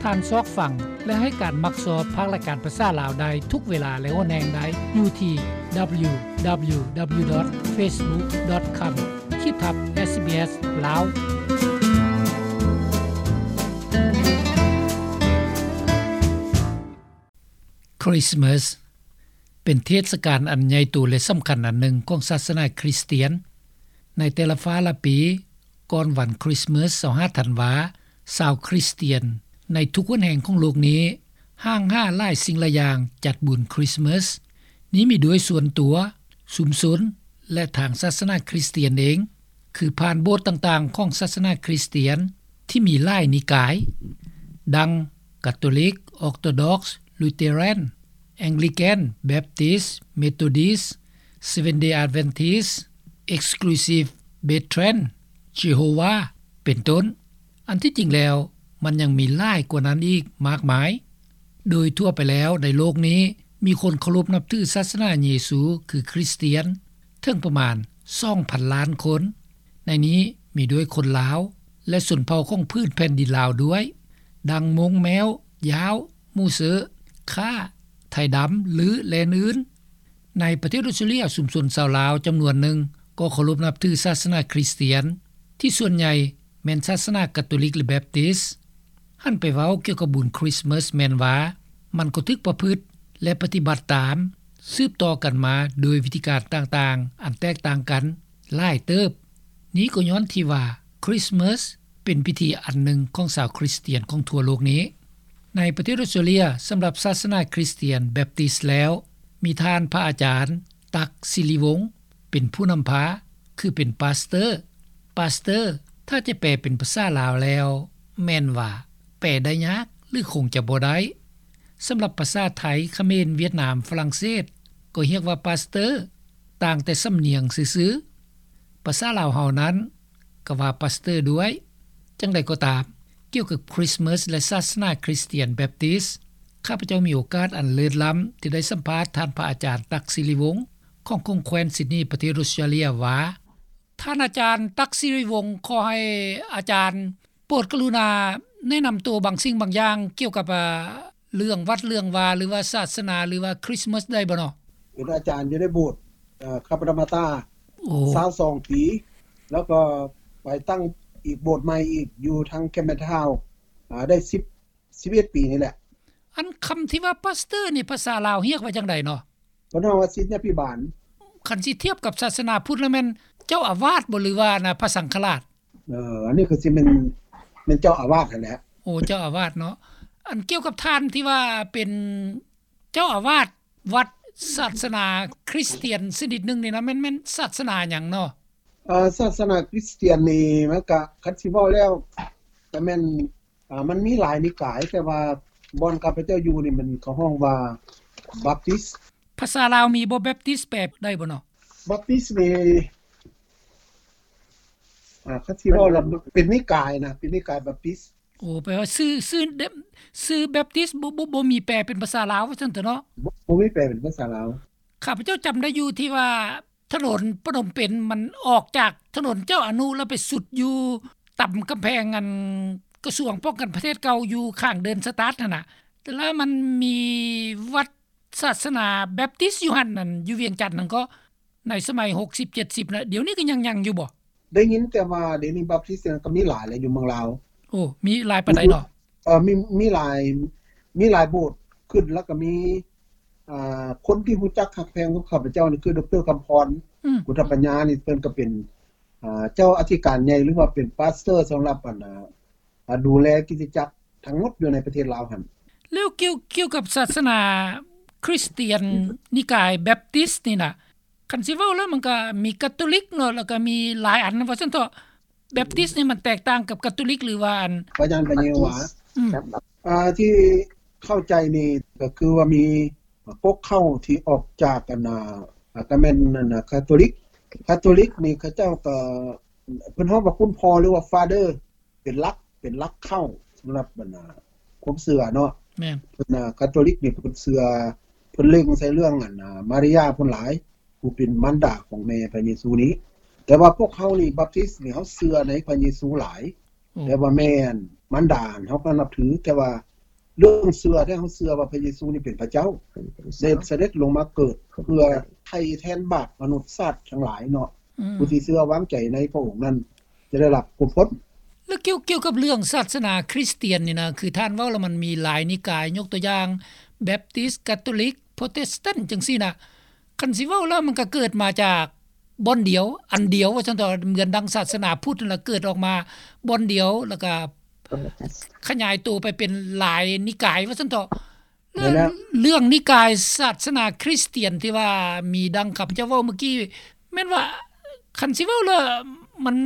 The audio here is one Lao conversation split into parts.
ການຊອກຟັງ ແລະ ໃຫ້ການມັກຊອບພາກລາຍການພາສາລາວໄດ້ທຸກເວລາ ແລະ ຫົນແຫ່ງໃດ ຢູ່ທີ່ www.facebook.com ຂີດທັບ SBS ລາວ. Christmas ເປັນເທດສະການອັນໃຫຍ່ໂຕ ແລະ ສຳຄັນອັນໜຶ່ງຂອງສາສະໜາຄຣິສຕຽນ. ໃນແຕ່ລະຟ້າລະປີ ກ່ອນວັນຄຣິສເມີສ ຊາວຫ້າ ທັນວາ, ຊາວຄຣິສຕຽນໃນທຸກຫົນແຫ່ງຂອງໂລກນີ້ ຫ້າງຫາຫຼາຍສິ່ງຫຼາຍຢ່າງຈັດບຸນຄຣິສເມີສ. ນີ້ມີດ້ວຍສ່ວນຕົວ, ຊຸມຊົນ ແລະ ທາງສາສະໜາຄຣິສຕຽນເອງ, ຄືຜ່ານໂບດຕ່າງໆຂອງສາສະໜາຄຣິສຕຽນທີ່ມີຫຼາຍນິກາຍ ດັ່ງ ກາໂຕລິກ, ອອກໂຕດັອກ, ລູເຕີແຣນ, ແອງລິກັນ, ແບັບຕິສ, ເມໂທດິສ, Seventh Day Adventist, Exclusive Brethren, Jehovah ເປັນຕົ້ນ. ອັນທີ່ຈິງແລ້ວ ມັນຍັງມີຫຼາຍກວ່ານັ້ນອີກມາກມາຍ. ໂດຍທົ່ວໄປແລ້ວໃນໂລກນີ້ ມີຄົນເຄົາລົບນັບຖືສາສະໜາເຢຊູ ຄືຄຣິສຕຽນ ເຖິງປະມານ ສອງພັນລ້ານຄົນ. ໃນນີ້ມີດ້ວຍຄົນລາວ ແລະ ຊົນເຜົ່າຂອງພື້ນແຜ່ນດິນລາວດ້ວຍ ດັ່ງມົ້ງ, ແມ້ວ, ຢາວ, ມູເຊີ, ຂ້າ, ໄທດຳ, ລື ແລະ ອື່ນໆ. ໃນປະເທດອົດສະຕຣາເລຍ, ຊຸມຊົນຊາວລາວຈຳນວນໜຶ່ງກໍເຄົາລົບນັບຖືສາສະໜາຄຣິສຕຽນ ທີ່ສ່ວນໃຫຍ່ແມ່ນສາສະໜາກາໂຕລິກ ແລະ ແບັບຕິສ. ຫັນໄປເວົ້າກ່ຽວກັບບຸນຄຣິສເມີສແມ່ນວ່າ ມັນກໍຖືກປະພຶດ ແລະ ປະຕິບັດຕາມ ສືບຕໍ່ກັນມາໂດຍວິທີການຕ່າງໆ ອັນແຕກຕ່າງກັນຫຼາຍເຕີບ. ນີ້ກໍຍ້ອນທີ່ວ່າຄຣິສເມີສເປັນພິທີອັນໜຶ່ງຂອງຊາວຄຣິສຕຽນຂອງທົ່ວໂລກນີ້. ໃນປະເທດອົດສະຕຣາເລຍ, ສຳລັບສາສະໜາຄຣິສຕຽນແບັບຕິສແລ້ວ ມີທ່ານພະອາຈານ ຕັກ ສິລິວົງ ເປັນຜູ້ນຳພາ ຄືເປັນປາສເຕີ. ປາສເຕີ ຖ້າຈະແປເປັນພາສາລາວແລ້ວ ແມ່ນວ່າແປໄດ້ຍາກ ຫຼື ຄົງຈະບໍ່ໄດ້. ສຳລັບພາສາໄທ, ຂະເໝນ, ຫວຽດນາມ, ຝຣັ່ງເສດ ກໍຮຽກວ່າປາສເຕີ ຕ່າງແຕ່ສຳນຽງຊື່ໆ. ພາສາລາວເຮົານັ້ນ ກໍວ່າປາສເຕີດ້ວຍ. ຈັ່ງໃດກໍຕາມ, ກ່ຽວກັບຄຣິສເມີສ ແລະ ສາສະໜາຄຣິສຕຽນແບັບຕິສ, ຂ້າພະເຈົ້າມີໂອກາດອັນເລີດລ້ຳທີ່ໄດ້ສຳພາດທ່ານພະອາຈານ ຕັກ ສິລິວົງ ຂອງຂົງແຂວນຊິດນີ ປະເທດອົດສະຕຣາເລຍວ່າ, ທ່ານອາຈານ ຕັກ ສິລິວົງ, ຂໍໃຫ້ອາຈານໂປດກະລຸນາແນະນຳໂຕບາງສິ່ງບາງຢ່າງກ່ຽວກັບ ອາ ເລື່ອງວັດເລື່ອງວາ ຫຼືວ່າສາສະໜາ ຫຼືວ່າຄຣິສເມີສໄດ້ບໍ່ເນາະ? ເປັນອາຈານຢູ່ໃນໂບດ ເອີ ຄາປະນາມາຕາ ໂອ້ ຊາວສອງປີ ແລ້ວກໍໄປຕັ້ງອີກໂບດໃໝ່ອີກ ຢູ່ທາງແຄມເປັນທາວນ໌ ອາ ໄດ້ສິບ ສິບເອັດປີນີ້ແຫຼະ. ອັນຄຳທີ່ວ່າປາສເຕີນີ້ ພາສາລາວຮຽກວ່າຈັ່ງໃດເນາະ? ເພິ່ນເອີ້ນວ່າສິດຍາພິບານ. ຄັນຊິທຽບກັບສາສະໜາພຸດແລ້ວແມ່ນເຈົ້າອາວາດບໍ່ ຫຼືວ່ານະ ພະສັງຄະລາດ? ເອີ ອັນນີ້ກໍຊິແມ່ນ ແມ່ນເຈົ້າອາວາດຫັ້ນແຫຼະ. ໂອ້ ເຈົ້າອາວາດເນາະ. ອັນກ່ຽວກັບທ່ານທີ່ວ່າເປັນເຈົ້າອາວາດວັດສາສະໜາຄຣິສຕຽນຊະນິດໜຶ່ງນີ້ນະ ແມ່ນ ແມ່ນສາສະໜາຫຍັງເນາະ? ເອີ ສາສະໜາຄຣິສຕຽນນີ້ມັນກະ ຄັນຊິເວົ້າແລ້ວກະແມ່ນ ອາ ມັນມີຫຼາຍນິກາຍ, ແຕ່ວ່າບ່ອນຂ້າພະເຈົ້າຢູ່ນີ້ ມັນເຂົາຮ້ອງວ່າບັບຕິສ. ພາສາລາວມີບໍ່ ແບັບຕິສ ແປໄດ້ບໍ່ເນາະ? ບັບຕິສນີ້ ອາ ຄັນຊິເວົ້າແລ້ວເປັນນິກາຍນະ, ເປັນນິກາຍບັບຕິສ. ໂອ້ ແປວ່າຊື່ ຊື່ ຊື່ແບັບຕິສ ບໍ່ ບໍ່ ບໍ່ມີແປເປັນພາສາລາວວ່າຊັ້ນເຖາະເນາະ? ບໍ່ ບໍ່ມີແປເປັນພາສາລາວ. ຂ້າພະເຈົ້າຈຳໄດ້ຢູ່ທີ່ວ່າ ຖະໜົນພະນົມເປັນ ມັນອອກຈາກຖະໜົນເຈົ້າອະນຸ ແລ້ວໄປສຸດຢູ່ຕຳກຳແພງ ອັນ ກະຊວງປ້ອງກັນປະເທດເກົ່າ ຢູ່ຂ້າງເດີນສະຕາດຫັ້ນນະ ແລ້ວມັນມີວັດສາສະໜາແບັບຕິສຢູ່ຫັ້ນ ອັນ ຢູ່ວຽງຈັນຫັ້ນກໍ ໃນສະໄໝຫົກສິບ ເຈັດສິບນະ ດຽວນີ້ກໍຍັງ ຍັງຢູ່ບໍ່? ໄດ້ຍິນແຕ່ວ່າດຽວນີ້ບັບຕິສກໍມີຫຼາຍແລ້ວຢູ່ເມືອງລາວ. ໂອ້ ມີຫຼາຍປານໃດເນາະ? ເອີ ມີ ມີຫຼາຍ ມີຫຼາຍໂບດຂຶ້ນ ແລ້ວກໍມີ ອ່າ ຄົນທີ່ຮູ້ຈັກຮັກແພງກັບຂ້າພະເຈົ້ານີ້ ຄື ດຣ ຄຳພອນ ອືມ ພຸດທະປັນຍານີ້ ເພິ່ນກໍເປັນ ອ່າ ເຈົ້າອະທິການໃຫຍ່ ຫຼືວ່າເປັນປາສເຕີສຳລັບ ອັນ ອ່າ ອ່າ ດູແລຄຣິສຕະຈັກທັງໝົດຢູ່ໃນປະເທດລາວຫັ້ນ. ແລ້ວກ່ຽວ ກ່ຽວກັບສາສະໜາຄຣິສຕຽນ ອືມ ນິກາຍແບັບຕິສນີ້ນະ ຄັນຊິເວົ້າແລ້ວມັນກໍມີກາໂຕລິກເນາະ ແລ້ວກໍມີຫຼາຍອັນວ່າຊັ້ນເຖາະ. ແບັບຕິສນີ້ມັນແຕກຕ່າງກັບກາໂຕລິກ ຫຼືວ່າອັນ ພະຍານພະເຢໂຮວາ? ອືມ ອ່າ ທີ່ເຂົ້າໃຈນີ້ກໍຄືວ່າມີ ອ່າ ກົກເຄົ້າທີ່ອອກຈາກ ອັນ ອ່າ ກໍແມ່ນ ອັນ ອ່າ ຄາໂຕລິກ. ຄາໂຕລິກນີ້ເຂົາເຈົ້າກໍ ເພິ່ນຮ້ອງວ່າຄຸນພໍ່ ຫຼືວ່າຟາເດີ ເປັນຫຼັກ ເປັນຫຼັກເຄົ້າສຳລັບ ອັນ ອ່າ ຄວາມເຊື່ອເນາະ. ແມ່ນ. ເພິ່ນ ອ່າ ຄາໂຕລິກນີ້ເພິ່ນເຊື່ອ ເພິ່ນເລັງໃສ່ເລື່ອງ ອັນ ອ່າ ມາລິຍາພຸ້ນຫຼາຍ ຜູ້ເປັນມານດາຂອງແມ່ພະເຢຊູນີ້. ແຕ່ວ່າພວກເຮົານີ້ ບັບຕິສນີ້ ເຮົາເຊື່ອໃນພະເຢຊູຫຼາຍ. ໂອ້ ແຕ່ວ່າແມ່ມານດາເຮົາກໍນັບຖື, ແຕ່ວ່າ ເລື່ອງເຊື່ອ ແທ້ເຮົາເຊື່ອວ່າພະເຢຊູນີ້ເປັນພະເຈົ້າ ໄດ້ສະເດັດລົງມາເກີດເພື່ອໄຖ່ແທນບາບມະນຸດຊາດທັງຫຼາຍເນາະ. ອືມ ຜູ້ທີ່ເຊື່ອວາງໃຈໃນພະອົງນັ້ນຈະໄດ້ຮັບຄວາມພົ້ນ. ແລ້ວກ່ຽວ ກ່ຽວກັບເລື່ອງສາສະໜາຄຣິສຕຽນນີ້ນະ ຄືທ່ານເວົ້າແລ້ວມັນມີຫຼາຍນິກາຍ ຍົກຕົວຢ່າງແບັບຕິສ, ກາໂຕລິກ, ໂປຣເຕສຕັນ ຈັ່ງຊີ້ນະ. ຄັນຊິເວົ້າແລ້ວມັນກໍເກີດມາຈາກບ່ອນດຽວ ອັນດຽວວ່າຊັ້ນເຖາະ ເໝືອນດັ່ງສາສະໜາພຸດນັ້ນລະ ເກີດອອກມາບ່ອນດຽວ ແລ້ວກໍຂະຫຍາຍໂຕໄປເປັນຫຼາຍນິກາຍວ່າຊັ້ນເຖາະ. ແລ້ວເລື່ອງນິກາຍສາສະໜາຄຣິສຕຽນທີ່ວ່າມີດັ່ງຂ້າພະເຈົ້າເວົ້າເມື່ອກີ້ ແມ່ນວ່າຄັນຊິເວົ້າແລ້ວມັນ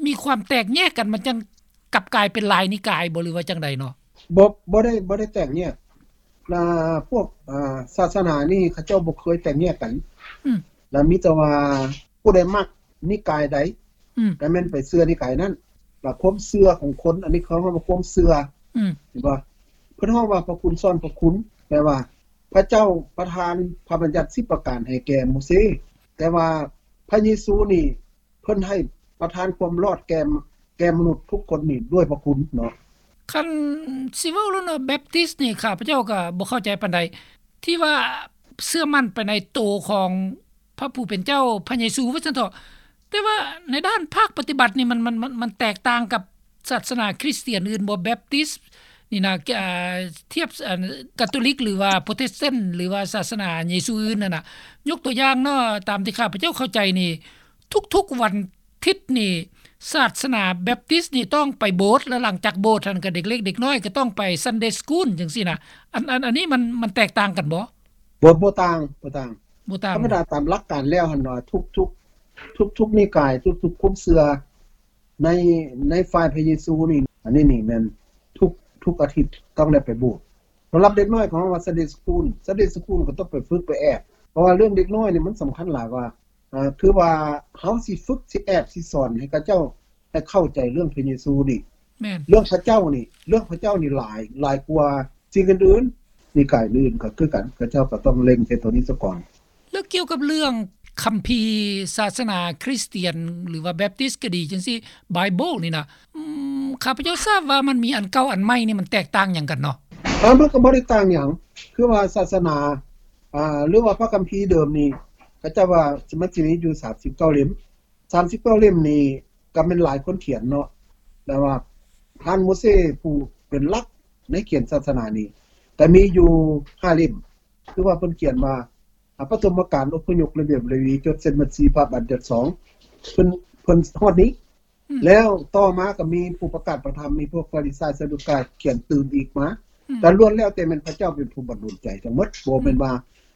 ມີຄວາມແຕກແຍກກັນ ມັນຈັ່ງ ກັບກາຍເປັນຫຼາຍນິກາຍບໍ່ ຫຼືວ່າຈັ່ງໃດເນາະ? ບໍ່ ບໍ່ໄດ້ ບໍ່ໄດ້ແຕກແຍກ. ອ່າ ພວກ ອ່າ ສາສະໜານີ້ເຂົາເຈົ້າບໍ່ເຄີຍແຕກແຍກກັນ. ອືມ ແລ້ວມີແຕ່ວ່າຜູ້ໃດມັກນິກາຍໃດ ອືມ ກໍແມ່ນໄປເຊື່ອນິກາຍນັ້ນ. ແລ້ວຄວາມເຊື່ອຂອງຄົນ ອັນນີ້ເຂົາເອີ້ນວ່າຄວາມເຊື່ອ ອືມ ເຫັນບໍ່? ເພິ່ນຮ້ອງວ່າພະຄຸນຊ້ອນພະຄຸນ ແປວ່າພະເຈົ້າປະທານພະບັນຍັດສິບປະການໃຫ້ແກ່ໂມເຊ, ແຕ່ວ່າພະເຢຊູນີ້ ເພິ່ນໃຫ້ປະທານຄວາມລອດແກ່ ແກ່ມະນຸດທຸກຄົນນີ້ດ້ວຍພະຄຸນເນາະ. ຄັນຊິເວົ້າແລ້ວເນາະ ແບັບຕິສນີ້ ຂ້າພະເຈົ້າກໍບໍ່ເຂົ້າໃຈປານໃດ ທີ່ວ່າເຊື່ອໝັ້ນໄປໃນໂຕຂອງພະຜູ້ເປັນເຈົ້າ ພະເຢຊູວ່າຊັ້ນເຖາະ, ແຕ່ວ່າໃນດ້ານພາກປະຕິບັດນີ້ ມັນ ມັນ ມັນ ມັນແຕກຕ່າງກັບສາສະໜາຄຣິສຕຽນອື່ນບໍ່? ແບັບຕິສນີ້ນະ ອ່າ ທຽບ ອັນ ກາໂຕລິກ ຫຼືວ່າໂປຣເຕສຕັນ ຫຼືວ່າສາສະໜາເຢຊູອື່ນນັ້ນນະ, ຍົກຕົວຢ່າງເນາະ ຕາມທີ່ຂ້າພະເຈົ້າເຂົ້າໃຈນີ້ ທຸກໆວັນທິດນີ້ ສາສະໜາແບັບຕິສນີ້ຕ້ອງໄປໂບດ ແລ້ວຫຼັງຈາກໂບດຫັ້ນກໍເດັກເລັກເດັກນ້ອຍກໍຕ້ອງໄປຊັນເດສະກູນ ຈັ່ງຊີ້ນະ. ອັນ ອັນ ອັນນີ້ມັນ ມັນແຕກຕ່າງກັນບໍ່? ບໍ່ ບໍ່ຕ່າງ ບໍ່ຕ່າງ ບໍ່ຕ່າງ. ທຳມະດາຕາມຫຼັກການແລ້ວຫັ້ນວ່າ ທຸກໆ ທຸກໆນິກາຍ ທຸກໆຄວາມເຊື່ອໃນ ໃນຝ່າຍພະເຢຊູນີ້ ອັນນີ້ນີ້ແມ່ນທຸກ ທຸກອາທິດຕ້ອງໄດ້ໄປໂບດ. ສຳລັບເດັກນ້ອຍຂອງເຮົາວ່າ Sunday School Sunday School ກໍຕ້ອງໄປຝຶກໄປແອບ ເພາະວ່າເລື່ອງເດັກນ້ອຍນີ້ມັນສຳຄັນຫຼາຍວ່າ ອ່າ ຄືວ່າເຮົາຊິຝຶກ ຊິແອບ ຊິສອນໃຫ້ເຂົາເຈົ້າ ໃຫ້ເຂົ້າໃຈເລື່ອງພະເຢຊູນີ້. ແມ່ນ ເລື່ອງພະເຈົ້ານີ້ ເລື່ອງພະເຈົ້ານີ້ຫຼາຍ ຫຼາຍກວ່າສິ່ງອື່ນໆ. ນິກາຍອື່ນກໍຄືກັນ ເຂົາເຈົ້າກໍຕ້ອງເລັງໃສ່ໂຕນີ້ສາກ່ອນ. ແລ້ວກ່ຽວກັບເລື່ອງຄຳພີສາສະໜາຄຣິສຕຽນ ຫຼືວ່າແບັບຕິສກໍດີຈັ່ງຊີ້ ໄບເບິນນີ້ນະ ອືມ ຂ້າພະເຈົ້າຊາບວ່າມັນມີອັນເກົ່າອັນໃໝ່ນີ້ ມັນແຕກຕ່າງຫຍັງກັນເນາະ? ເອີ ມັນກໍບໍ່ໄດ້ຕ່າງຫຍັງ ຄືວ່າສາສະໜາ ອ່າ ຫຼືວ່າພະຄຳພີເດີມນີ້ ເຂົາເຈົ້າວ່າມັນຊິມີຢູ່ສາມສິບເກົ້າເຫຼັ້ມ ສາມສິບເກົ້າເຫຼັ້ມນີ້ກໍແມ່ນຫຼາຍຄົນຂຽນເນາະ ແຕ່ວ່າທ່ານໂມເຊຜູ້ເປັນຫຼັກໃນຂຽນສາສະໜານີ້ ກໍມີຢູ່ຫ້າເຫຼັ້ມ ຄືວ່າເພິ່ນຂຽນວ່າ ອາ ປະຖົມມະການ, ອົບພະຍົກ, ລະບຽບລະວີ, ຈົດເສັດບັນຊີ, ພະບັນຍັດສອງ ເພິ່ນ ເພິ່ນຮອດນີ້ ອືມ ແລ້ວຕໍ່ມາກໍມີຜູ້ປະກາດພະທຳ ມີພວກຟາຣິຊາຍ ຊາດູກາຍຂຽນຕື່ມອີກມາ ອືມ ກໍລ້ວນແລ້ວແຕ່ແມ່ນພະເຈົ້າເປັນຜູ້ບັນດົນໃຈທັງໝົດ ບໍ່ແມ່ນ ອືມ ວ່າ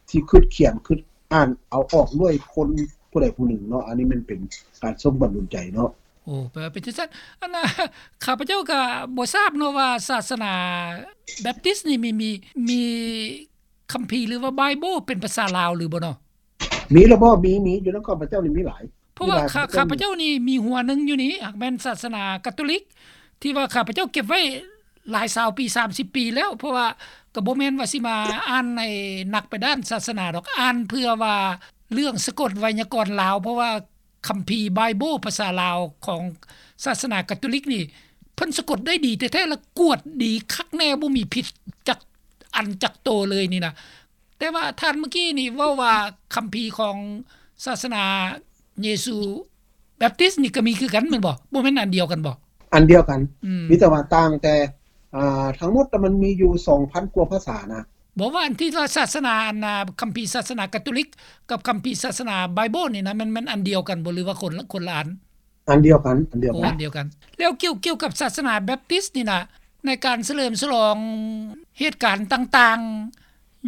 ຊິຄິດຂຽນ ຄິດອ່ານເອົາອອກດ້ວຍຄົນຜູ້ໃດຜູ້ໜຶ່ງເນາະ. ອັນນີ້ແມ່ນເປັນການຊົງບັນດົນໃຈເນາະ. ໂອ້ ແປວ່າເປັນຈັ່ງຊັ້ນ. ອັນນ່າ ຂ້າພະເຈົ້າກໍບໍ່ຊາບເນາະວ່າສາສະໜາແບັບຕິສນີ້ມີ ມີ ມີຄຳພີ ຫຼືວ່າໄບເບິນເປັນພາສາລາວຫຼືບໍ່ເນາະ? ມີລະບໍ່? ມີ ມີ ຢູ່ນຳຂ້າພະເຈົ້ານີ້ມີຫຼາຍ. ເພາະວ່າ ມີຫຼາຍ ຂ້າ ຂ້າພະເຈົ້ານີ້ມີຫົວໜຶ່ງຢູ່ນີ້ ຫາກແມ່ນສາສະໜາກາໂຕລິກ ທີ່ວ່າຂ້າພະເຈົ້າເກັບໄວ້ຫຼາຍຊາວປີ ສາມສິບປີແລ້ວ ເພາະວ່າກໍບໍ່ແມ່ນວ່າຊິມາອ່ານໃຫ້ໜັກໄປດ້ານສາສະໜາດອກ ອ່ານເພື່ອວ່າເລື່ອງສະກົດໄວຍາກອນລາວ ເພາະວ່າຄຳພີໄບເບິນພາສາລາວຂອງສາສະໜາກາໂຕລິກນີ້ ເພິ່ນສະກົດໄດ້ດີແທ້ໆ ແລະ ກວດດີຄັກແນ່ ບໍ່ມີຜິດຈັກອັນຈັກໂຕເລີຍນີ້ນະ. ແຕ່ວ່າທ່ານເມື່ອກີ້ນີ້ເວົ້າວ່າຄຳພີຂອງສາສະໜາເຢຊູແບັບຕິສນີ້ກໍມີຄືກັນແມ່ນບໍ່? ບໍ່ແມ່ນອັນດຽວກັນບໍ່? ອັນດຽວກັນ ອືມ ມີແຕ່ວ່າຕ່າງແຕ່ ອ່າ ທັງໝົດມັນມີຢູ່ສອງພັນກວ່າພາສານະ. ບໍ່ ວ່າອັນທີ່ວ່າສາສະໜາ ອັນນ່າ ຄຳພີສາສະໜາກາໂຕລິກກັບຄຳພີສາສະໜາໄບເບິນນີ້ນະ ແມ່ນ ແມ່ນອັນດຽວກັນບໍ່ ຫຼືວ່າຄົນລະ ຄົນລະອັນ? ອັນດຽວກັນ ອັນດຽວກັນ ໂອ້ ອັນດຽວກັນ. ແລ້ວກ່ຽວ ກ່ຽວກັບສາສະໜາແບັບຕິສນີ້ນະ ໃນການສະເຫຼີມສະຫຼອງເຫດການຕ່າງ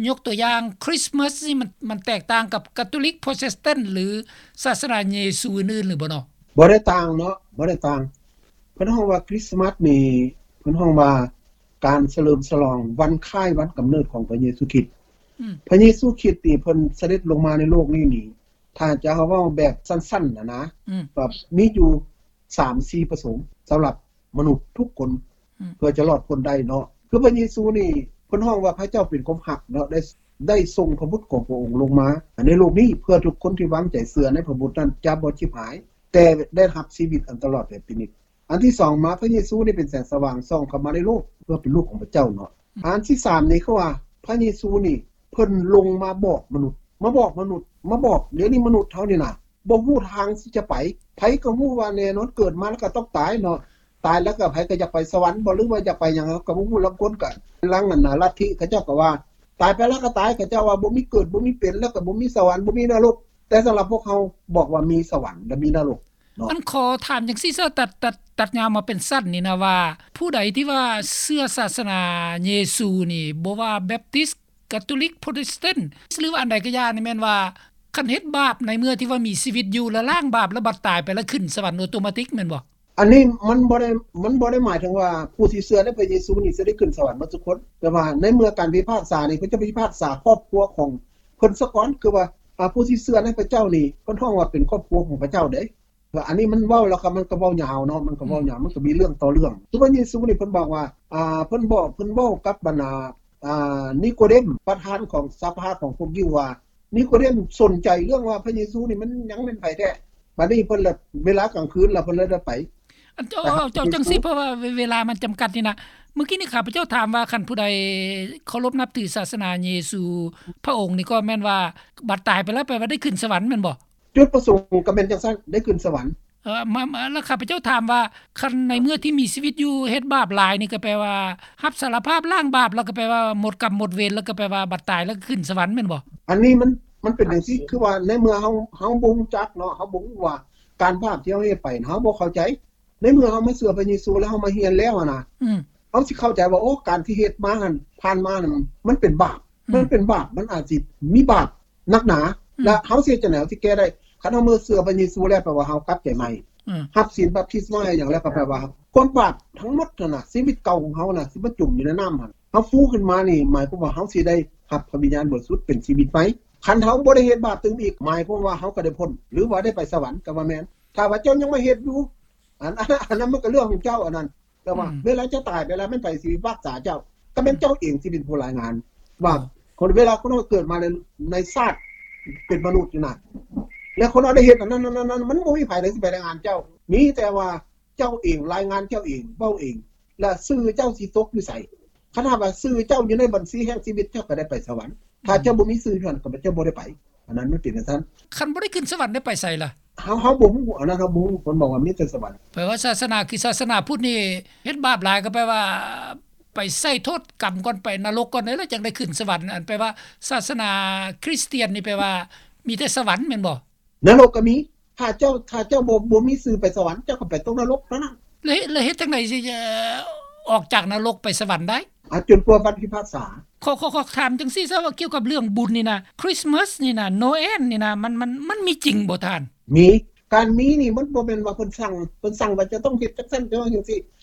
ໆ ຍົກຕົວຢ່າງຄຣິສມາສນີ້ ມັນ ມັນແຕກຕ່າງກັບກາໂຕລິກ ໂປຣເຕສຕັນ ຫຼື ສາສະໜາເຢຊູອື່ນໆ ຫຼືບໍ່ເນາະ? ບໍ່ໄດ້ຕ່າງເນາະ ບໍ່ໄດ້ຕ່າງ. ເພິ່ນຮ້ອງວ່າຄຣິສມາສນີ້ ເພິ່ນຮ້ອງວ່າການສະເຫຼີມສະຫຼອງວັນຄ້າຍວັນກຳເນີດຂອງພະເຢຊູຄຣິດ. ອືມ ພະເຢຊູຄຣິດນີ້ເພິ່ນສະເດັດລົງມາໃນໂລກນີ້ນີ້ ຖ້າຈະເວົ້າແບບສັ້ນໆນະນະ ອືມ ກໍມີຢູ່ສາມສີ່ປະສົງສຳລັບມະນຸດທຸກຄົນ ອືມ ເພື່ອຈະລອດພົ້ນໄດ້ເນາະ. ຄືພະເຢຊູນີ້ ເພິ່ນຮ້ອງວ່າພະເຈົ້າເປັນຄວາມຮັກເນາະ ໄດ້ ໄດ້ສົ່ງພະບຸດຂອງພະອົງລົງມາໃນໂລກນີ້ ເພື່ອທຸກຄົນທີ່ວາງໃຈເຊື່ອໃນພະບຸດນັ້ນຈະບໍ່ຈິບຫາຍ ແຕ່ໄດ້ຮັບຊີວິດອັນຕະຫຼອດແບບພິນິດ. ອັນທີສອງມາ ພະເຢຊູນີ້ເປັນແສງສະຫວ່າງສ່ອງເຂົ້າມາໃນໂລກ ເພື່ອເປັນລູກຂອງພະເຈົ້າເນາະ. ອັນທີສາມນີ້ ຄືວ່າພະເຢຊູນີ້ ເພິ່ນລົງມາບອກມະນຸດ ມາບອກມະນຸດ ມາບອກ ດຽວນີ້ມະນຸດເຮົານີ້ນະ ບໍ່ຮູ້ທາງຊິຈະໄປ. ໃຜກໍຮູ້ວ່າແນ່ນອນເກີດມາແລ້ວກໍຕ້ອງຕາຍເນາະ, ຕາຍແລ້ວກໍໃຜກໍຢາກໄປສະຫວັນບໍ່ ຫຼືວ່າຢາກໄປຫຍັງ ເຮົາກໍບໍ່ຮູ້. ລາງຄົນກໍ ລາງອັນນະລັດທິເຂົາເຈົ້າກໍວ່າ ຕາຍໄປແລ້ວກໍຕາຍ, ເຂົາເຈົ້າວ່າບໍ່ມີເກີດ ບໍ່ມີເປັນ ແລ້ວກໍບໍ່ມີສະຫວັນ ບໍ່ມີນະລົກ. ແຕ່ສຳລັບພວກເຮົາບອກວ່າມີສະຫວັນ ແລະ ມີນະລົກເນາະ. ອັນຂໍຖາມຈັ່ງຊີ້ຊະ ຕັດ ຕັດ ຕັດຍາວມາເປັນສັ້ນນີ້ນະວ່າ ຜູ້ໃດທີ່ວ່າເຊື່ອສາສະໜາເຢຊູນີ້ ບໍ່ວ່າແບັບຕິສ ກາໂຕລິກ ໂປຣເຕສແຕນ ຫຼືວ່າອັນໃດກໍຢ່ານີ້ ແມ່ນວ່າຄັນເຮັດບາບໃນເມື່ອທີ່ວ່າມີຊີວິດຢູ່ ແລ້ວລ້າງບາບ ແລ້ວບັດຕາຍໄປແລ້ວຂຶ້ນສະຫວັນໂອໂຕມາຕິກແມ່ນບໍ່? ອັນນີ້ມັນບໍ່ໄດ້ ມັນບໍ່ໄດ້ໝາຍເຖິງວ່າຜູ້ທີ່ເຊື່ອໃນພະເຢຊູນີ້ຈະໄດ້ຂຶ້ນສະຫວັນໝົດທຸກຄົນ, ແຕ່ວ່າໃນເມື່ອການພິພາກສານີ້ ເພິ່ນຈະພິພາກສາຄອບຄົວຂອງເພິ່ນສາກ່ອນ. ຄືວ່າ ອາ ຜູ້ທີ່ເຊື່ອໃນພະເຈົ້ານີ້ ເພິ່ນຮ້ອງວ່າເປັນຄອບຄົວຂອງພະເຈົ້າເດ້. ອັນນີ້ມັນເວົ້າແລ້ວກໍ ມັນກໍເວົ້າຍາວເນາະ ມັນກໍເວົ້າຍາວ ອືມ ມັນກໍມີເລື່ອງຕໍ່ເລື່ອງ. ຄືພະເຢຊູນີ້ເພິ່ນບອກວ່າ ອ່າ ເພິ່ນບອກ ເພິ່ນເວົ້າກັບບັນດາ ອ່າ ນິໂກເດມ ປະທານຂອງສະພາຂອງພວກຢິວວ່າ ນິໂກເດມສົນໃຈເລື່ອງວ່າພະເຢຊູນີ້ມັນຍັງແມ່ນໃຜແທ້. ບັດນີ້ເພິ່ນລະ ເວລາກາງຄືນລະ ເພິ່ນລະໄດ້ໄປ. ອັນ ເຈົ້າ ເຈົ້າ ເຈົ້າ ຈັ່ງຊີ້ ເພາະວ່າເວ ເວລາມັນຈຳກັດນີ້ນະ. ເມື່ອກີ້ນີ້ຂ້າພະເຈົ້າຖາມວ່າ ຄັນຜູ້ໃດເຄົາລົບນັບຖືສາສະໜາເຢຊູພະອົງນີ້ ກໍແມ່ນວ່າບັດຕາຍໄປແລ້ວ ແປວ່າໄດ້ຂຶ້ນສະຫວັນແມ່ນບໍ່? ຈຸດປະສົງກໍແມ່ນຈັ່ງຊັ້ນ ໄດ້ຂຶ້ນສະຫວັນ. ເອີ ມາ ມາ ແລ້ວຂ້າພະເຈົ້າຖາມວ່າ ຄັນໃນເມື່ອທີ່ມີຊີວິດຢູ່ເຮັດບາບຫຼາຍນີ້ ກໍແປວ່າຮັບສາລະພາບ ລ້າງບາບ ແລ້ວກໍແປວ່າໝົດກຳໝົດເວນ ແລ້ວກໍແປວ່າບັດຕາຍແລ້ວກໍຂຶ້ນສະຫວັນແມ່ນບໍ່? ອັນນີ້ມັນ ມັນເປັນຈັ່ງຊີ້ ຄືວ່າໃນເມື່ອເຮົາ ເຮົາບໍ່ຮູ້ຈັກເນາະ ເຮົາບໍ່ຮູ້ວ່າການບາບທີ່ເຮົາເຮັດໄປ ເຮົາບໍ່ເຂົ້າໃຈ. ໃນເມື່ອເຮົາມາເຊື່ອພະເຢຊູ ແລ້ວເຮົາມາຮຽນແລ້ວຫັ້ນນະ ອືມ ເຮົາຊິເຂົ້າໃຈວ່າ ໂອ້ ການທີ່ເຮັດມາຫັ້ນ ຜ່ານມາຫັ້ນ ມັນເປັນບາບ ອືມ ມັນເປັນບາບ ມັນອາດຊິມີບາບໜັກໜາ ອືມ ແລະ ເຮົາຊິເຮັດຈັ່ງໃດ ເຮົາຊິແກ້ໄດ້? ຄັນເຮົາມາເຊື່ອພະເຢຊູແລ້ວ ແປວ່າເຮົາກັບໃຈໃໝ່ ອືມ ຮັບສິນບັບຕິສມາ ຫຍັງແລ້ວ ກໍແປວ່າຄວາມບາບທັງໝົດຫັ້ນນະ ຊີວິດເກົ່າຂອງເຮົານະ ທີ່ມັນຈົມຢູ່ໃນນ້ຳຫັ້ນ ເຮົາຟູຂຶ້ນມານີ້ ໝາຍຄວາມວ່າເຮົາຊິໄດ້ຮັບພະວິນຍານບໍລິສຸດເປັນຊີວິດໃໝ່. ຄັນເຮົາບໍ່ໄດ້ເຮັດບາບຕື່ມອີກ ໝາຍຄວາມວ່າເຮົາກໍໄດ້ພົ້ນ ຫຼືວ່າໄດ້ໄປສະຫວັນກໍວ່າແມ່ນ. ຖ້າວ່າເຈົ້າຍັງມາເຮັດຢູ່ ອັນ ອັນ ອັນນັ້ນມັນກໍເລື່ອງຂອງເຈົ້າ ອັນນັ້ນ ແຕ່ວ່າ ອືມ ເວລາເຈົ້າຕາຍໄປແລ້ວ ແມ່ນໃຜຊິພິພາກສາເຈົ້າ? ກໍແມ່ນເຈົ້າເອງທີ່ເປັນຜູ້ລາຍງານວ່າ ເອີ ຄົນ ເວລາຄົນເຮົາເກີດມາໃນ ໃນຊາດເປັນມະນຸດນີ້ນະ ແລ້ວຄົນເຮົາໄດ້ເຮັດອັນນັ້ນ ອັນນັ້ນ ອັນນັ້ນ ມັນບໍ່ມີໃຜໃດຊິໄປລາຍງານເຈົ້າ. ມີແຕ່ວ່າເຈົ້າເອງລາຍງານເຈົ້າເອງ ເວົ້າເອງ ແລ້ວຊື່ເຈົ້າຊິຕົກຢູ່ໃສ? ຄັນຫາກວ່າຊື່ເຈົ້າຢູ່ໃນບັນຊີແຫ່ງຊີວິດ ເຈົ້າກໍໄດ້ໄປສະຫວັນ. ຖ້າເຈົ້າ ອືມ ບໍ່ມີຊື່ຢູ່ຫັ້ນ ກໍເຈົ້າບໍ່ໄດ້ໄປ. ອັນນັ້ນມັນເປັນຈັ່ງຊັ້ນ. ຄັນບໍ່ໄດ້ຂຶ້ນສະຫວັນໄດ້ໄປໃສລະ? ເຮົາ ເຮົາບໍ່ຮູ້ ອັນນັ້ນເຮົາບໍ່ຮູ້. ເພິ່ນບອກວ່າມີແຕ່ສະຫວັນ. ແປວ່າສາສະໜາ ຄືສາສະໜາພຸດນີ້ ເຮັດບາບຫຼາຍກໍແປວ່າໄປໃຊ້ໂທດກຳກ່ອນ ໄປນະລົກກ່ອນ ແລ້ວຈັ່ງໄດ້ຂຶ້ນສະຫວັນ. ອັນແປວ່າສາສະໜາຄຣິສຕຽນນີ້ ແປວ່າມີແຕ່ສະຫວັນແມ່ນບໍ່? ນະລົກກໍມີ. ຖ້າເຈົ້າ ຖ້າເຈົ້າບໍ່ ບໍ່ມີຊື່ໄປສະຫວັນ ເຈົ້າກໍໄປຕົກນະລົກເທົ່ານັ້ນ. ແລ້ວ ແລ້ວເຮັດຈັ່ງໃດຊິ ເອີ ອອກຈາກນະລົກໄປສະຫວັນໄດ້? ອາ ຈົນກວ່າວັນພິພາກສາ. ຂໍ ຂໍ ຂໍຖາມຈັ່ງຊີ້ຊະ ວ່າກ່ຽວກັບເລື່ອງບຸນນີ້ນະ ຄຣິສມາສນີ້ນະ ໂນແອນນີ້ນະ ມັນ ມັນ ມັນມີຈິງບໍ່ທ່ານ? ມີ. ການມີນີ້ມັນບໍ່ແມ່ນວ່າເພິ່ນສັ່ງ ເພິ່ນສັ່ງວ່າຈະຕ້ອງເຮັດຈັ່ງຊັ້ນ ຈະຕ້ອງເຮັດຈັ່ງຊີ້.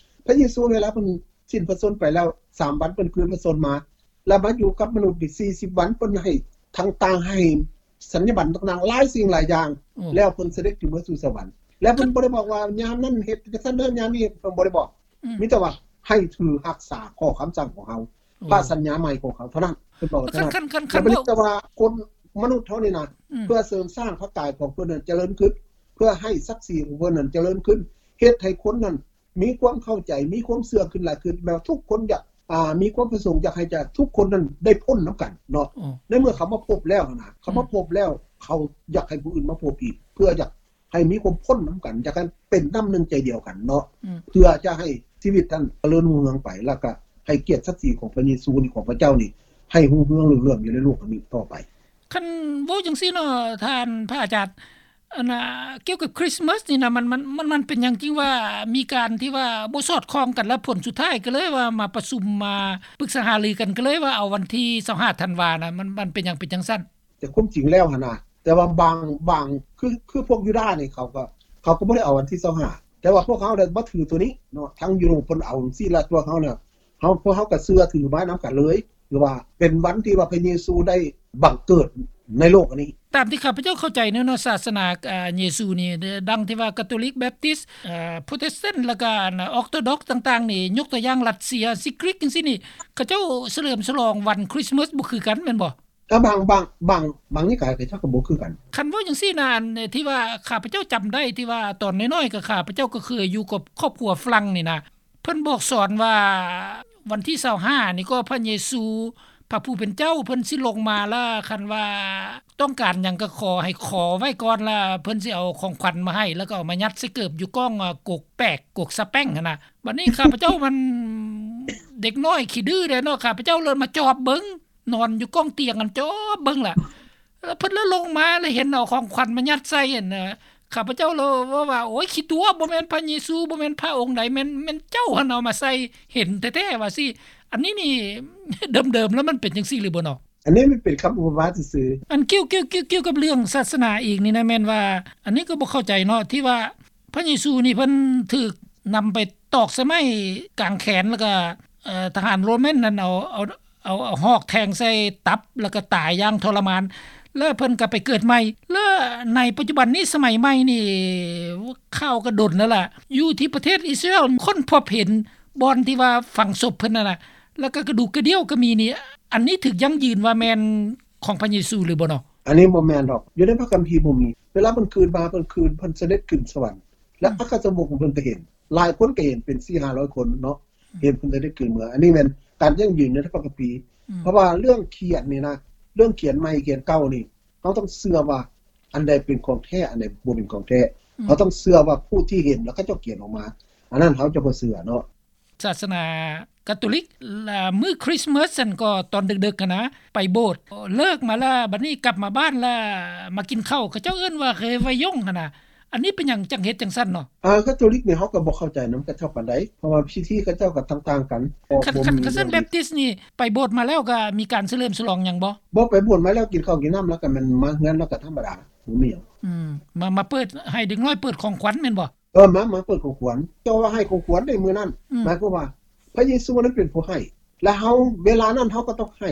ພະເຢຊູເວລາເພິ່ນສິ້ນພະຊົນໄປແລ້ວ ສາມວັນເພິ່ນຄືນພະຊົນມາ ແລ້ວມາຢູ່ກັບມະນຸດອີກສີ່ສິບວັນ ເພິ່ນໃຫ້ທັງຕ່າງໃຫ້ສັນຍາບັນຕ່າງໆ ຫຼາຍສິ່ງຫຼາຍຢ່າງ ໂອ້ ແລ້ວເພິ່ນສະເດັດຂຶ້ນເມືອສູ່ສະຫວັນ. ແລ້ວເພິ່ນບໍ່ໄດ້ບອກວ່າຍາມນັ້ນເຮັດຈັ່ງຊັ້ນເດີ ຍາມນີ້ເຮັດ ເພິ່ນບໍ່ໄດ້ບອກ. ອືມ ມີແຕ່ວ່າໃຫ້ຖືຮັກສາຂໍ້ຄຳສັ່ງຂອງເຮົາ ໂອ້ ພະສັນຍາໃໝ່ຂອງເຮົາເທົ່ານັ້ນ ເພິ່ນບອກວ່າເທົ່ານັ້ນ. ຄັນ ຄັນ ຄັນ ແລ້ວເພິ່ນ ເວົ້າ ແຕ່ວ່າຄົນມະນຸດເຮົານີ້ນະ ອືມ ເພື່ອເສີມສ້າງພະກາຍຂອງເພິ່ນນັ້ນຈະເລີນຂຶ້ນ ເພື່ອໃຫ້ສັກສີຂອງເພິ່ນນັ້ນຈະເລີນຂຶ້ນ ເຮັດໃຫ້ຄົນນັ້ນ ມີຄວາມເຂົ້າໃຈ ມີຄວາມເຊື່ອຂຶ້ນຫຼາຍຂຶ້ນ ແບບວ່າທຸກຄົນຢາກ ອ່າ ມີຄວາມປະສົງຢາກໃຫ້ຈະ ທຸກຄົນນັ້ນໄດ້ພົ້ນນຳກັນເນາະ. ໂອ້ ໃນເມື່ອເຂົາມາພົບແລ້ວນະ ເຂົາມາ ອືມ ພົບແລ້ວ ເຂົາຢາກໃຫ້ຜູ້ອື່ນມາພົບອີກ ເພື່ອຢາກໃຫ້ມີຄວາມພົ້ນນຳກັນ ຢາກໃຫ້ເປັນນ້ຳໜຶ່ງໃຈດຽວກັນເນາະ. ອືມ ເພື່ອຈະໃຫ້ຊີວິດນັ້ນຈະເລີນຮຸ່ງເຮືອງໄປ ແລ້ວກະໃຫ້ກຽດສັກສີຂອງພະເຢຊູນີ້ ຂອງພະເຈົ້ານີ້ ໃຫ້ຮຸ່ງເຮືອງເລື່ອງໆຢູ່ໃນໂລກອັນນີ້ຕໍ່ໄປ. ຄັນເວົ້າຈັ່ງຊີ້ເນາະ ທ່ານພະອາຈານ ອັນນ່າ ກ່ຽວກັບຄຣິສມາສນີ້ນະ ມັນ ມັນ ມັນ ມັນເປັນຫຍັງຈຶ່ງວ່າມີການທີ່ວ່າບໍ່ສອດຄ່ອງກັນ ແລ້ວຜົນສຸດທ້າຍກໍເລີຍວ່າມາປະຊຸມ ມາປຶກສາຫາລືກັນ ກໍເລີຍວ່າເອົາວັນທີຊາວຫ້າທັນວານະ ມັນ ມັນເປັນຫຍັງເປັນຈັ່ງຊັ້ນ? ແຕ່ຄວາມຈິງແລ້ວຫັ້ນນະ ແຕ່ວ່າບາງ ບາງ ຄື ຄືພວກຢູດານີ້ ເຂົາກໍ ເຂົາກໍບໍ່ໄດ້ເອົາວັນທີຊາວຫ້າ ແຕ່ວ່າພວກເຮົາໄດ້ມາຖືໂຕນີ້ເນາະ ທາງຢູໂຣບເພິ່ນເອົາຈັ່ງຊີ້ ແລ້ວພວກເຮົານະ ເຮົາ ພວກເຮົາກໍເຊື່ອຖືມານຳກັນເລີຍ ຄືວ່າເປັນວັນທີ່ວ່າພະເຢຊູໄດ້ບັງເກີດໃນໂລກອັນນີ້. ຕາມທີ່ຂ້າພະເຈົ້າເຂົ້າໃຈເນາະ ສາສະໜາ ອາ ເຢຊູນີ້ ດັ່ງທີ່ວ່າກາໂຕລິກ ແບັບຕິສ ເອີ ໂປຣເຕສແຕນ ແລ້ວກໍອັນ ອອກໂຕດັອກຕ່າງໆນີ້ ຍົກຕົວຢ່າງລັດເຊຍ ຊີກຣີກ ຈັ່ງຊີ້ນີ້ ເຂົາເຈົ້າສະເຫຼີມສະຫຼອງວັນຄຣິສມາສບໍ່ຄືກັນແມ່ນບໍ່? ກໍບາງ ບາງ ບາງ ບາງນິກາຍເຂົາເຈົ້າກໍບໍ່ຄືກັນ. ຄັນເວົ້າຈັ່ງຊີ້ນະ ອັນທີ່ວ່າຂ້າພະເຈົ້າຈຳໄດ້ ທີ່ວ່າຕອນນ້ອຍໆ ກໍຂ້າພະເຈົ້າກໍເຄີຍຢູ່ກັບຄອບຄົວຝຣັ່ງນີ້ນະ ເພິ່ນບອກສອນວ່າ ວັນທີຊາວຫ້ານີ້ກໍພະເຢຊູ ພະຜູ້ເປັນເຈົ້າເພິ່ນຊິລົງມາລະ ຄັນວ່າຕ້ອງການຫຍັງກໍຂໍ ໃຫ້ຂໍໄວ້ກ່ອນລະ ເພິ່ນຊິເອົາຂອງຂວັນມາໃຫ້ ແລ້ວກໍເອົາມາຍັດໃສ່ເກີບຢູ່ກ້ອງ ອາ ກົກແປກ ກົກສະແປ້ງຫັ້ນນະ. ບັດນີ້ຂ້າພະເຈົ້າມັນເດັກນ້ອຍຂີ້ດື້ເດ້ເນາະ ຂ້າພະເຈົ້າເລີຍມາຈອບເບິ່ງ ນອນຢູ່ກ້ອງຕຽງຫັ້ນ ຈອບເບິ່ງລະ ແລ້ວເພິ່ນລະລົງມາ ລະເຫັນເອົາຂອງຂວັນມາຍັດໃສ່ຫັ້ນນະ ຂ້າພະເຈົ້າລະເວົ້າວ່າ ໂອ້ຍ ຂີ້ຕົວະ ບໍ່ແມ່ນພະເຢຊູ ບໍ່ແມ່ນພະອົງໃດ ແມ່ນ ແມ່ນເຈົ້າຫັ້ນເອົາມາໃສ່ ເຫັນແທ້ໆວ່າຊີ້. ອັນນີ້ນີ້ ເດີມໆແລ້ວມັນເປັນຈັ່ງຊີ້ຫຼືບໍ່ເນາະ? ອັນນີ້ມັນເປັນຄຳອຸປມາຊື່ໆ. ອັນກ່ຽວ ກ່ຽວ ກ່ຽວ ກ່ຽວກັບເລື່ອງສາສະໜາອີກນີ້ນະ ແມ່ນວ່າ ອັນນີ້ກໍບໍ່ເຂົ້າໃຈເນາະ ທີ່ວ່າ ພະເຢຊູນີ້ເພິ່ນຖືກນຳໄປຕອກໃສ່ໄມ້ກາງແຂນ ແລ້ວກະ ເອີ ທະຫານໂຣມັນນັ້ນເອົາ ເອົາ ເອົາ ເອົາຫອກແທງໃສ່ຕັບ ແລ້ວກະຕາຍຢ່າງທໍລະມານ ແລ້ວເພິ່ນກະໄປເກີດໃໝ່. ແລ້ວໃນປັດຈຸບັນນີ້ ສະໄໝໃໝ່ນີ້ ຂ່າວກະດົນແລ້ວລະ ຢູ່ທີ່ປະເທດອິດສະຣາເອວຄົ້ນພົບເຫັນບ່ອນທີ່ວ່າຝັງສົບເພິ່ນນັ້ນນະ ແລ້ວກະກະດູກກະດຽວກະມີນີ້ ອັນນີ້ຖືກຢັ້ງຢືນວ່າແມ່ນຂອງພະເຢຊູຫຼືບໍ່ເນາະ? ອັນນີ້ບໍ່ແມ່ນດອກ ຢູ່ໃນພະຄຳພີບໍ່ມີ. ເວລາເພິ່ນຄືນມາ ເພິ່ນຄືນ ເພິ່ນສະເດັດຂຶ້ນສະຫວັນ ແລະ ອືມ ອັກຄະສາວົກຂອງເພິ່ນກໍເຫັນ ຫຼາຍຄົນກໍເຫັນ ເປັນສີ່ຫ້າຮ້ອຍຄົນເນາະ ອືມ ເຫັນເພິ່ນສະເດັດຂຶ້ນເມືອງ. ອັນນີ້ແມ່ນການຢັ້ງຢືນໃນພະຄຳພີ ອືມ ເພາະວ່າເລື່ອງຂຽນນີ້ນະ ເລື່ອງຂຽນໃໝ່ຂຽນເກົ່ານີ້ ເຮົາຕ້ອງເຊື່ອວ່າອັນໃດເປັນຂອງແທ້ ອັນໃດບໍ່ເປັນຂອງແທ້ ອືມ ເຮົາຕ້ອງເຊື່ອວ່າຜູ້ທີ່ເຫັນ ແລ້ວເຂົາເຈົ້າຂຽນອອກມາ ອັນນັ້ນເຮົາຈະບໍ່ເຊື່ອເນາະ. ສາສະໜາກາໂຕລິກ ລະມື້ຄຣິສມາສຫັ້ນກໍຕອນເດິກໆຫັ້ນນະ ໄປໂບດ ເລີກມາລະ ບັດນີ້ກັບມາບ້ານລະມາກິນເຂົ້າ ເຂົາເຈົ້າເອີ້ນວ່າ ເຣວາຍົງ ຫັ້ນນະ. ອັນນີ້ເປັນຫຍັງຈັ່ງເຮັດຈັ່ງຊັ້ນເນາະ? ອາ ກາໂຕລິກນີ້ເຮົາກໍບໍ່ເຂົ້າໃຈນຳເຂົາເຈົ້າປານໃດ ເພາະວ່າພິທີເຂົາເຈົ້າກໍຕ່າງໆກັນ. ຄັນ ຄັນ ຄັນຊັ້ນແບບຕິສນີ້ ໄປໂບດມາແລ້ວກໍມີການສະເຫຼີມສະຫຼອງຫຍັງບໍ່? ບໍ່ ໄປໂບດມາແລ້ວກິນເຂົ້າກິນນ້ຳ ແລ້ວກໍແມ່ນມາເຮືອນ ແລ້ວກໍທຳມະດາ ບໍ່ມີຫຍັງ. ອືມ ມາ ມາເປີດ ໃຫ້ເດັກນ້ອຍເປີດຂອງຂວັນແມ່ນບໍ່? ເອີ ມາ ມາເປີດຂອງຂວັນ ເຈົ້າວ່າໃຫ້ຂອງຂວັນໃນມື້ນັ້ນ ອືມ ໝາຍຄວາມວ່າພະເຢຊູນັ້ນເປັນຜູ້ໃຫ້ ແລະ ເຮົາ ເວລານັ້ນເຮົາກໍຕ້ອງໃຫ້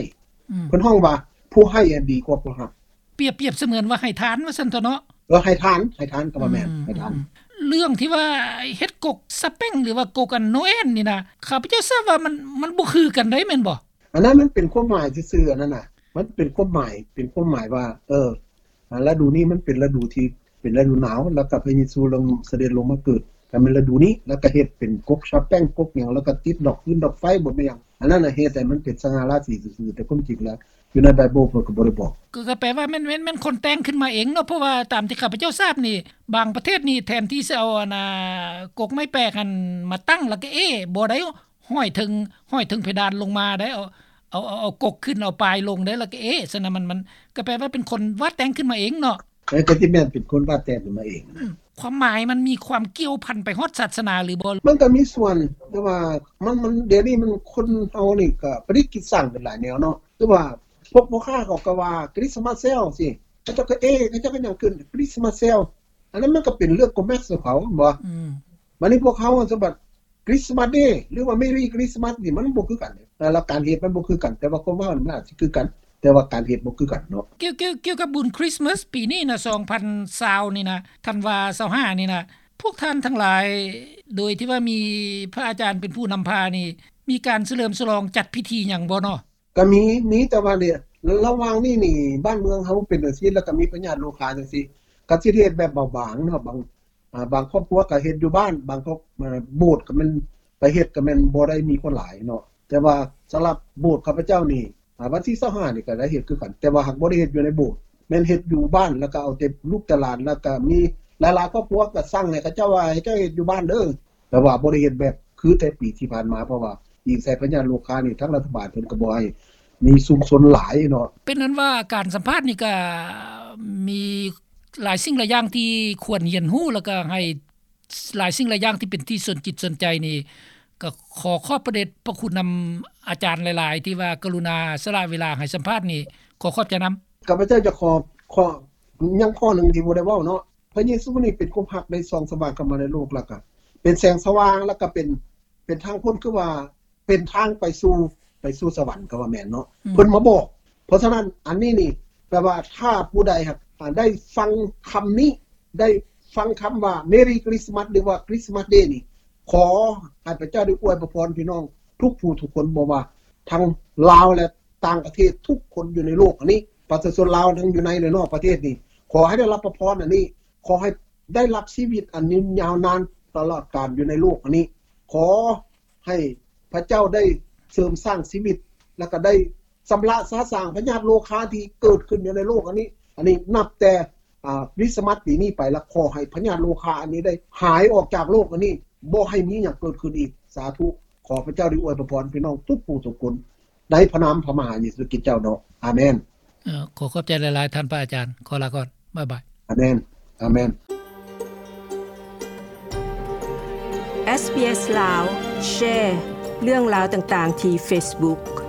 ອືມ ເພິ່ນຮ້ອງວ່າ ຜູ້ໃຫ້ອັນດີກວ່າຜູ້ຮັບ. ປຽບ ປຽບສະເໝືອນວ່າໃຫ້ທານວ່າຊັ້ນເຖາະເນາະ. ເອີ ໃຫ້ທານ ໃຫ້ທານກໍວ່າແມ່ນ ອືມ ໃຫ້ທານ ອືມ. ເລື່ອງທີ່ວ່າເຮັດກົກສະແປ້ງ ຫຼືວ່າກົກອັນໂນແອນນີ້ນະ ຂ້າພະເຈົ້າຊາບວ່າມັນ ມັນບໍ່ຄືກັນໃດ ແມ່ນບໍ່? ອັນນັ້ນມັນເປັນຄວາມໝາຍຊື່ໆ ອັນນັ້ນນະ ມັນເປັນຄວາມໝາຍ ເປັນຄວາມໝາຍວ່າ ເອີ ອາ ລະດູນີ້ມັນເປັນລະດູທີ່ເປັນລະດູໜາວ ແລ້ວກໍພະເຢຊູລົງ ສະເດັດລົງມາເກີດ ກໍແມ່ນລະດູນີ້ ແລ້ວກໍເຮັດເປັນກົກສະແປ້ງ ກົກຫຍັງ ແລ້ວກໍຕິດດອກຟືນດອກໄຟ ບໍ່ແມ່ນຫຍັງ ອັນນັ້ນນະ ເຮັດໃຫ້ມັນເປັນສະຫງ່າລາສີຊື່ໆ ແຕ່ຄວາມຈິງແລ້ວຢູ່ໃນໄບເບິນເພິ່ນກໍບໍ່ໄດ້ບອກ. ກໍ ກໍແປວ່າແມ່ນ ແມ່ນ ແມ່ນຄົນແຕ່ງຂຶ້ນມາເອງເນາະ ເພາະວ່າຕາມທີ່ຂ້າພະເຈົ້າຊາບນີ້ ບາງປະເທດນີ້ ແທນທີ່ຊິເອົາອັນນ່າ ກົກໄມ້ແປກຫັ້ນມາຕັ້ງ ແລ້ວກໍເອ້ ບໍ່ໄດ້ ຫ້ອຍເທິງ ຫ້ອຍເທິງເພດານລົງມາໄດ໋ ເອົາ ເອົາ ເອົາ ເອົາກົກຂຶ້ນ ເອົາປາຍລົງໄດ໋ ແລ້ວກໍເອ ຊັ້ນນະ ມັນ ມັນກໍແປວ່າເປັນຄົນວາດແຕ່ງຂຶ້ນມາເອງເນາະ. ເອີ ກໍຊິແມ່ນເປັນຄົນວາດແຕ່ງຂຶ້ນມາເອງ. ອືມ ຄວາມໝາຍມັນມີຄວາມກ່ຽວພັນໄປຮອດສາສະໜາຫຼືບໍ່? ມັນກໍມີສ່ວນ ແຕ່ວ່າມັນ ມັນ ດຽວນີ້ມັນຄົນເຮົານີ້ກໍປະດິດຄິດສ້າງໄປຫຼາຍແນວເນາະ ຄືວ່າພວກພໍ່ຄ້າເຂົາກໍວ່າຄຣິສມາສເຊວຊີ້ ເຂົາເຈົ້າກໍເອ ເຂົາເຈົ້າກໍຫຍັງຂຶ້ນຄຣິສມາສເຊວ ອັນນັ້ນມັນກໍເປັນເລື່ອງໂກແມັກຂອງເຂົາ ແມ່ນບໍ່? ອືມ ບັດນີ້ພວກເຮົາສະບັດ ຄຣິສມາສເດ ຫຼືວ່າ ເມຣີຄຣິສມາສນີ້ ມັນບໍ່ຄືກັນເດ້ ແລ້ວການເຮັດມັນບໍ່ຄືກັນ ແຕ່ວ່າຄວາມເວົ້າມັນອາດຊິຄືກັນ ແຕ່ວ່າການເຮັດບໍ່ຄືກັນເນາະ. ກ່ຽວ ກ່ຽວ ກ່ຽວກັບບຸນຄຣິສມາສປີນີ້ນະ ສອງພັນຊາວນີ້ນະ ທັນວາຊາວຫ້ານີ້ນະ ພວກທ່ານທັງຫຼາຍ ໂດຍທີ່ວ່າມີພະອາຈານເປັນຜູ້ນຳພານີ້ ມີການສະເຫຼີມສະຫຼອງຈັດພິທີຫຍັງບໍ່ເນາະ? ກໍມີ ມີ ແຕ່ວ່ານີ້ ລະຫວ່າງນີ້ນີ້ ບ້ານເມືອງເຮົາເປັນຈັ່ງຊີ້ ແລ້ວກໍມີພະຍາດໂລຄາຈັ່ງຊີ້ ກໍຊິເຮັດແບບເບົາບາງເນາະ ບາງ ອາ ບາງຄອບຄົວກໍເຮັດຢູ່ບ້ານ ບາງຄອບ ອາ ໂບດກໍແມ່ນໄປເຮັດ ກໍແມ່ນບໍ່ໄດ້ມີຄົນຫຼາຍເນາະ ແຕ່ວ່າສຳລັບໂບດຂ້າພະເຈົ້ານີ້ ອາ ວັນທີຊາວຫ້ານີ້ກໍໄດ້ເຮັດຄືກັນ ແຕ່ວ່າຫາກບໍ່ໄດ້ເຮັດຢູ່ໃນໂບດ ແມ່ນເຮັດຢູ່ບ້ານ ແລ້ວກໍເອົາແຕ່ລູກແຕ່ຫຼານ ແລ້ວກໍມີຫຼາຍໆຄອບຄົວກໍສັ່ງໃຫ້ເຂົາເຈົ້າວ່າ ໃຫ້ເຈົ້າເຮັດຢູ່ບ້ານເດີ ແຕ່ວ່າບໍ່ໄດ້ເຮັດແບບຄືແຕ່ປີທີ່ຜ່ານມາ ເພາະວ່າອີງໃສ່ພະຍາດໂລຄານີ້ ທາງລັດຖະບານເພິ່ນກໍບໍ່ໃຫ້ມີຊຸມຊົນຫຼາຍເນາະ. ເປັນນັ້ນວ່າການສຳພາດນີ້ກໍມີຫຼາຍສິ່ງຫຼາຍຢ່າງທີ່ຄວນຮຽນຮູ້ ແລ້ວກໍໃຫ້ຫຼາຍສິ່ງຫຼາຍຢ່າງທີ່ເປັນທີ່ສົນຈິດສົນໃຈນີ້ ກໍຂໍຂອບພະເດດພະຄຸນນຳອາຈານຫຼາຍໆ ທີ່ວ່າກະລຸນາສະຫຼະເວລາໃຫ້ສຳພາດນີ້ ຂໍຂອບໃຈນຳ. ຂ້າພະເຈົ້າຈະຂໍ ຂໍ ຍັງຂໍ້ໜຶ່ງທີ່ບໍ່ໄດ້ເວົ້າເນາະ ພະເຢຊູນີ້ເປັນຄວາມຮັກໄດ້ສ່ອງສະຫວ່າງເຂົ້າມາໃນໂລກ ແລ້ວກະເປັນແສງສະຫວ່າງ ແລ້ວກະເປັນ ເປັນທາງພົ້ນ ຄືວ່າເປັນທາງໄປສູ່ ໄປສູ່ສະຫວັນ ກໍວ່າແມ່ນເນາະ ອືມ ເພິ່ນມາບອກ. ເພາະສະນັ້ນ ອັນນີ້ນີ້ແປວ່າ ຖ້າຜູ້ໃດຫາກ ອາ ໄດ້ຟັງຄຳນີ້ ໄດ້ຟັງຄຳວ່າ Merry Christmas ຫຼືວ່າ Christmas Day ນີ້ ຂໍໃຫ້ພະເຈົ້າໄດ້ອວຍພະພອນພີ່ນ້ອງທຸກຜູ້ທຸກຄົນ ບໍ່ວ່າທັງລາວ ແລະ ຕ່າງປະເທດທຸກຄົນຢູ່ໃນໂລກອັນນີ້ ປະຊາຊົນລາວທັງຢູ່ໃນ ແລະ ນອກປະເທດນີ້ ຂໍໃຫ້ໄດ້ຮັບພະພອນອັນນີ້ ຂໍໃຫ້ໄດ້ຮັບຊີວິດອັນຍືນຍາວນານຕະຫຼອດການຢູ່ໃນໂລກອັນນີ້ ຂໍໃຫ້ພະເຈົ້າໄດ້ ເສີມສ້າງຊີວິດ ແລ້ວກໍໄດ້ຊຳລະສະສາງພະຍາດໂລຄາທີ່ເກີດຂຶ້ນຢູ່ໃນໂລກອັນນີ້. ອັນນີ້ນັບແຕ່ ອ່າ ຄຣິສຕະມັດປີນີ້ໄປ ແລ້ວຂໍໃຫ້ພະຍາດໂລຄາອັນນີ້ໄດ້ຫາຍອອກຈາກໂລກອັນນີ້ ບໍ່ໃຫ້ມີຫຍັງເກີດຂຶ້ນອີກ. ສາທຸ. ຂໍພະເຈົ້າໄດ້ອວຍພະພອນພີ່ນ້ອງທຸກຜູ້ທຸກຄົນ ໃນພະນາມພະມະຫາເຢຊູຄຣິດເຈົ້າເນາະ. ອາເມນ. ເອີ ຂໍຂອບໃຈຫຼາຍໆ ທ່ານພະອາຈານ. ຂໍລາກ່ອນ. ບາຍບາຍ. ອາເມນ. ອາເມນ. ເອສບີເອສລາວ ແຊເລື່ອງລາວຕ່າງໆ ທີ່ເຟສບຸກ.